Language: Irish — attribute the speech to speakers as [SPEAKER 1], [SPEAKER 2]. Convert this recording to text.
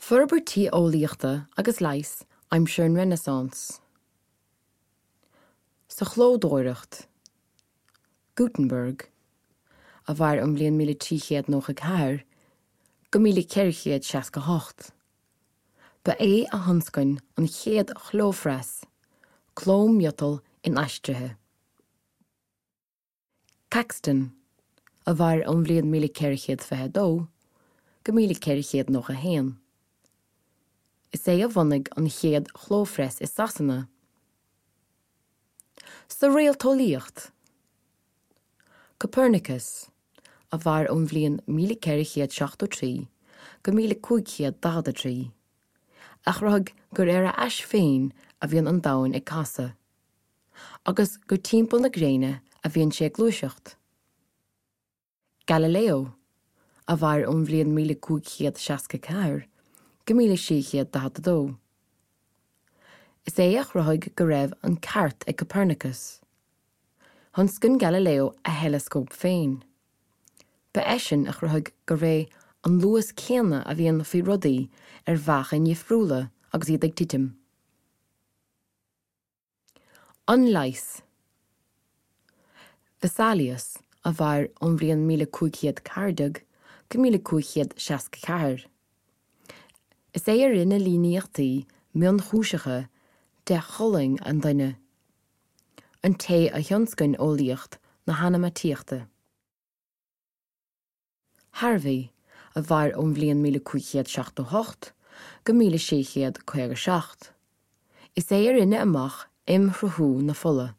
[SPEAKER 1] Forbairtí eolaíochta agus leighis aimsir an Renaissance. Sa chlódóireacht. Gutenberg, a mhair ón bhliain 1394 go 1468. Ba é a thionscain an chéad chlóphreas, cló miotail inaistrithe. Caxton, a mhair ón bhliain 1422 go 1491. Is é a bhunaigh an chéad chlóphreas i Sasana. Sa réalteolaíocht, Copernicus, a mhair ón bhliain 1473 go 1543, a chruthaigh gur ar a ais féin a bhíonn an Domhan ag casadh. agus gur timpeall na gréine a bhíonn sé ag gluaiseacht. Galileo, a mhair ón bhliain 1564 go 1642. Is é a chruthaigh go raibh an ceart ag Copernicus. Thionscain Galileo a theileascóp féin. Ba eisean a chruthaigh gurb é an luas céanna a bhíonn faoi rudaí ar mheáchain dhifriúla agus iad ag titim. An leigheas. Vesalius, a mhair ón bhliain 1514 go 1564. Is é a rinne líníochtaí mionchúiseacha de cholainn an duine. An té a thionscain eolaíocht na hanamaíochta. Harvey, a mhair ón bhliain 1578 go 1657. Is é a rinne amach imshruthú na fola.